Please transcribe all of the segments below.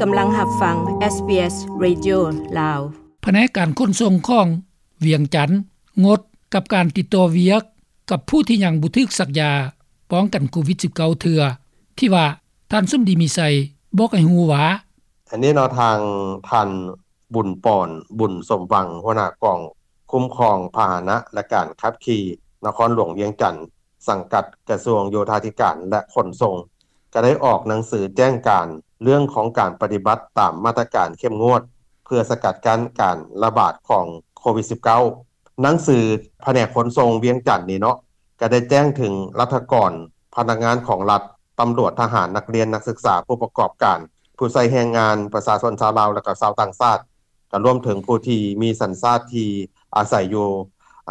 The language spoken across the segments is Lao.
ກຳລັງຮັບຟັງ ເອສບີເອສ ເຣດິໂອ ລາວ. ພະແນກການຂົນສົ່ງຂອງວຽງຈັນງົດກັບການຕິດຕໍ່ວຽກກັບຜູ້ທີ່ຍັງບໍ່ຖືກສັກຢາປ້ອງກັນໂຄວິດສິບເກົ້າເທື່ອ ທີ່ວ່າທ່ານສົມດີ ມີໄຊ ບອກໃຫ້ຮູ້ວ່າ ອັນນີ້ເນາະ ທາງທ່ານ ບຸນປອນ ບຸນສົມຫວັງ ຫົວໜ້າກອງຄຸ້ມຄອງພາຫະນະ ແລະ ການຂັບຂີ່ນະຄອນຫຼວງວຽງຈັນ ສັງກັດກະຊວງໂຍທາທິການ ແລະ ຂົນສົ່ງ ກໍໄດ້ອອກໜັງສືແຈ້ງການເລື່ອງຂອງການປະຕິບັດຕາມມາດຕະການເຂັ້ມງວດ ເພື່ອສະກັດກັ້ນການລະບາດຂອງໂຄວິດສິບເກົ້າ. ໜັງສືພະແນກຂົນສົ່ງວຽງຈັນນີ້ເນາະ ກໍໄດ້ແຈ້ງເຖິງລັດຖະກອນ, ພະນັກງານຂອງລັດ, ຕຳຫຼວດ, ທະຫານ, ນັກຮຽນ, ນັກສຶກສາ, ຜູ້ປະກອບການ, ຜູ້ໃຊ້ແຮງງານ, ປະຊາຊົນຊາວລາວ ແລະ ກໍຊາວຕ່າງຊາດ, ກໍລວມເຖິງຜູ້ທີ່ມີສັນຊາດທີ່ອາໄສຢູ່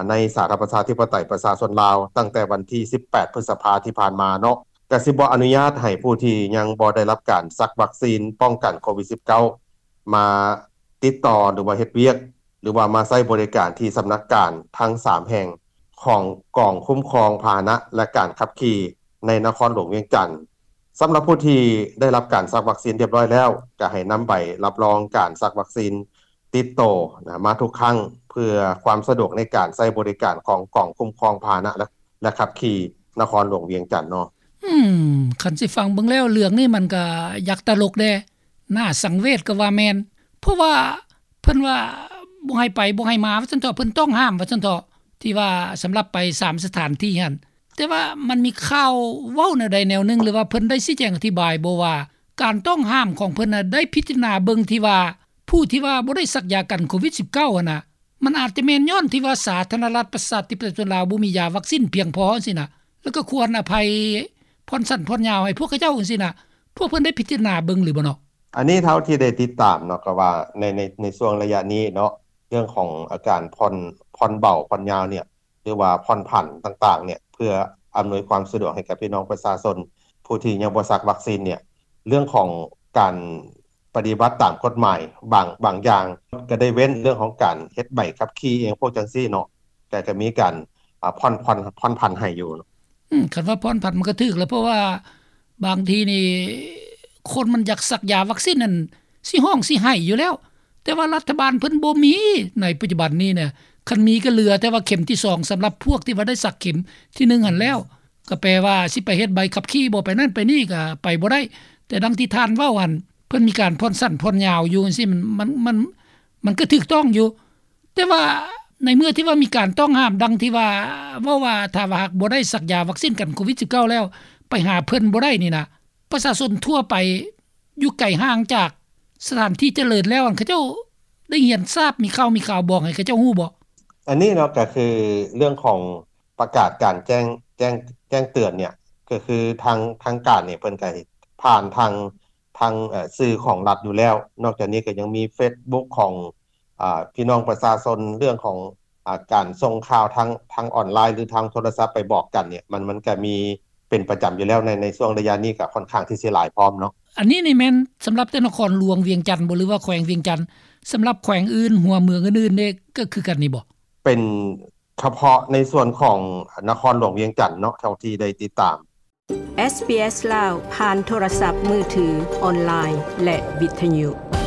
ໃນສາທາລະນະລັດປະຊາທິປະໄຕປະຊາຊົນລາວ ຕັ້ງແຕ່ວັນທີສິບແປດ ພຶດສະພາທີ່ຜ່ານມາເນາະ, ກໍຊິບໍ່ອະນຸຍາດໃຫ້ຜູ້ທີ່ຍັງບໍ່ໄດ້ຮັບການສັກວັກຊີນປ້ອງກັນໂຄວິດສິບເກົ້າ ມາຕິດຕໍ່ ຫຼືວ່າເຮັດວຽກ ຫຼືວ່າມາໃຊ້ບໍລິການທີ່ສຳນັກງານທັງສາມແຫ່ງຂອງກອງຄຸ້ມຄອງພາຫະນະ ແລະ ການຂັບຂີ່ໃນນະຄອນຫຼວງວຽງຈັນ. ສຳລັບຜູ້ທີ່ໄດ້ຮັບການສັກວັກຊີນຮຽບຮ້ອຍແລ້ວ ກໍໃຫ້ນຳໃບຮັບຮອງການສັກວັກຊີນຕິດໂຕນະ ມາທຸກຄັ້ງ ເພື່ອຄວາມສະດວກໃນການໃຊ້ບໍລິການຂອງກອງຄຸ້ມຄອງພາຫະນະ ແລະ ແລະ ຂັບຂີ່ນະຄອນຫຼວງວຽງຈັນເນາະ. ອືມ ຄັນຊິຟັງເບິ່ງແລ້ວ ເລື່ອງນີ້ມັນກໍຢາກຕະຫຼົກແດ່ ໜ້າສັງເວດກໍວ່າແມ່ນ ເພາະວ່າເພິ່ນວ່າບໍ່ໃຫ້ໄປ ບໍ່ໃຫ້ມາ ວ່າຊັ້ນເຖາະ, ເພິ່ນຕ້ອງຫ້າມ ວ່າຊັ້ນເຖາະ, ທີ່ວ່າສຳລັບໄປສາມສະຖານທີ່ຫັ້ນ. ແຕ່ວ່າມັນມີຂ່າວເວົ້າແນວໃດແນວໜຶ່ງ ຫຼືວ່າເພິ່ນໄດ້ຊີ້ແຈງອະທິບາຍບໍ່ວ່າ ການຕ້ອງຫ້າມຂອງເພິ່ນນະ ໄດ້ພິຈາລະນາເບິ່ງທີ່ວ່າ ຜູ້ທີ່ວ່າບໍ່ໄດ້ສັກຢາກັນໂຄວິດສິບເກົ້າຫັ້ນນະ ມັນອາດຈະແມ່ນຍ້ອນທີ່ວ່າສາທາລະນະລັດປະຊາທິປະໄຕປະຊາຊົນລາວບໍ່ມີຢາວັກຊີນພຽງພໍຈັ່ງຊີ້ນະ ແລ້ວກໍຄວນອະໄພຜ່ອນສັ້ນຜ່ອນຍາວໃຫ້ພວກເຂົາເຈົ້າຈັ່ງຊີ້ນະ. ພວກເພິ່ນໄດ້ພິຈາລະນາເບິ່ງຫຼືບໍ່ເນາະ? ອັນນີ້ເທົ່າທີ່ໄດ້ຕິດຕາມເນາະ ກໍວ່າໃນ ໃນ ໃນຊ່ວງໄລຍະນີ້ເນາະ ເລື່ອງຂອງອາການຜ່ອນ ຜ່ອນເບົາຜ່ອນຍາວເນຍ ຫຼືວ່າຜ່ອນຜັນຕ່າງໆເນຍ ເພື່ອອຳນວຍຄວາມສະດວກໃຫ້ກັບພີ່ນ້ອງປະຊາຊົນຜູ້ທີ່ຍັງບໍ່ສັກວັກຊີນເນຍ ເລື່ອງຂອງການປະຕິບັດຕາມກົດໝາຍບາງ ບາງຢ່າງ ກໍໄດ້ເວັ້ນເລື່ອງຂອງການເຮັດໃບຂັບຂີ່ອີ່ຫຍັງພວກຈັ່ງຊີ້ເນາະ ກໍ ກໍມີການ ອາ ຜ່ອນ ຜ່ອນ ຜ່ອນຜັນໃຫ້ຢູ່. ອືມ ຄັນວ່າຜ່ອນຜັນມັນກໍຖືກແລ້ວ ເພາະວ່າບາງທີນີ້ ຄົນມັນຢາກສັກຢາວັກຊີນນັ້ນ ຊິຮ້ອງຊິໄຫ້ຢູ່ແລ້ວ ແຕ່ວ່າລັດຖະບານເພິ່ນບໍ່ມີໃນປັດຈຸບັນນີ້ນະ. ຄັນມີກໍເຫຼືອແຕ່ວ່າເຂັມທີສອງ ສຳລັບພວກທີ່ວ່າໄດ້ສັກເຂັມທີໜຶ່ງຫັ້ນແລ້ວ ກໍແປວ່າຊິໄປເຮັດໃບຂັບຂີ່ບໍ່ ໄປນັ້ນໄປນີ້ກໍໄປບໍ່ໄດ້. ແຕ່ດັ່ງທີ່ທ່ານເວົ້າຫັ້ນ ເພິ່ນມີການຜ່ອນສັ້ນຜ່ອນຍາວຢູ່ຈັ່ງຊີ້ ມັນ ມັນ ມັນ ມັນກໍຖືກຕ້ອງຢູ່. ແຕ່ວ່າໃນເມື່ອທີ່ວ່າມີການຕ້ອງຫ້າມ ດັ່ງທີ່ວ່າເວົ້າວ່າ ຖ້າວ່າຫາກບໍ່ໄດ້ສັກຢາວັກຊີນກັນໂຄວິດສິບເກົ້າແລ້ວ ໄປຫາເພິ່ນບໍ່ໄດ້ນີ້ນະ ປະຊາຊົນທົ່ວໄປຢູ່ໄກຫ່າງຈາກສະຖານທີ່ຈະເລີນແລ້ວ ອັນເຂົາເຈົ້າໄດ້ຮຽນຊາບ ມີຂ່າວມີຂ່າວບອກໃຫ້ເຂົາເຈົ້າຮູ້ບໍ່? ອັນນີ້ເນາະ ກໍຄືເລື່ອງຂອງປະກາດການແຈ້ງ ແຈ້ງ ແຈ້ງເຕືອນເນຍ ກໍຄືທາງ ທາງການນີ້ເພິ່ນກໍຜ່ານທາງ ທາງ ເອີ ສື່ຂອງລັດຢູ່ແລ້ວ. ນອກຈາກນີ້ກໍຍັງມີເຟສບຸກຂອງ ອາ ພີ່ນ້ອງປະຊາຊົນ ເລື່ອງຂອງ ອາ ການສົ່ງຂ່າວທາງ ທາງອອນລາຍ ຫຼື ທາງໂທລະສັບໄປບອກກັນເນຍ ມັນ ມັນກໍມີເປັນປະຈຳຢູ່ແລ້ວ ໃນ ໃນຊ່ວງໄລຍະນີ້ກໍຄ່ອນຂ້າງທີ່ຊິຫຼາຍພ້ອມເນາະ. ອັນນີ້ນີ້ແມ່ນສຳລັບແຕ່ນະຄອນຫຼວງວຽງຈັນບໍ່ ຫຼືວ່າແຂວງວຽງຈັນ? ສຳລັບແຂວງອື່ນ ຫົວເມືອງອື່ນໆເດ ກໍຄືກັນນີ້ບໍ່? ເປັນ ສະເພາະໃນສ່ວນຂອງນະຄອນຫຼວງວຽງຈັນເນາະ ເທົ່າທີ່ໄດ້ຕິດຕາມ. ເອສບີເອສ ລາວ ຜ່ານໂທລະສັບມືຖື, ອອນລາຍ ແລະ ວິທະຍຸ.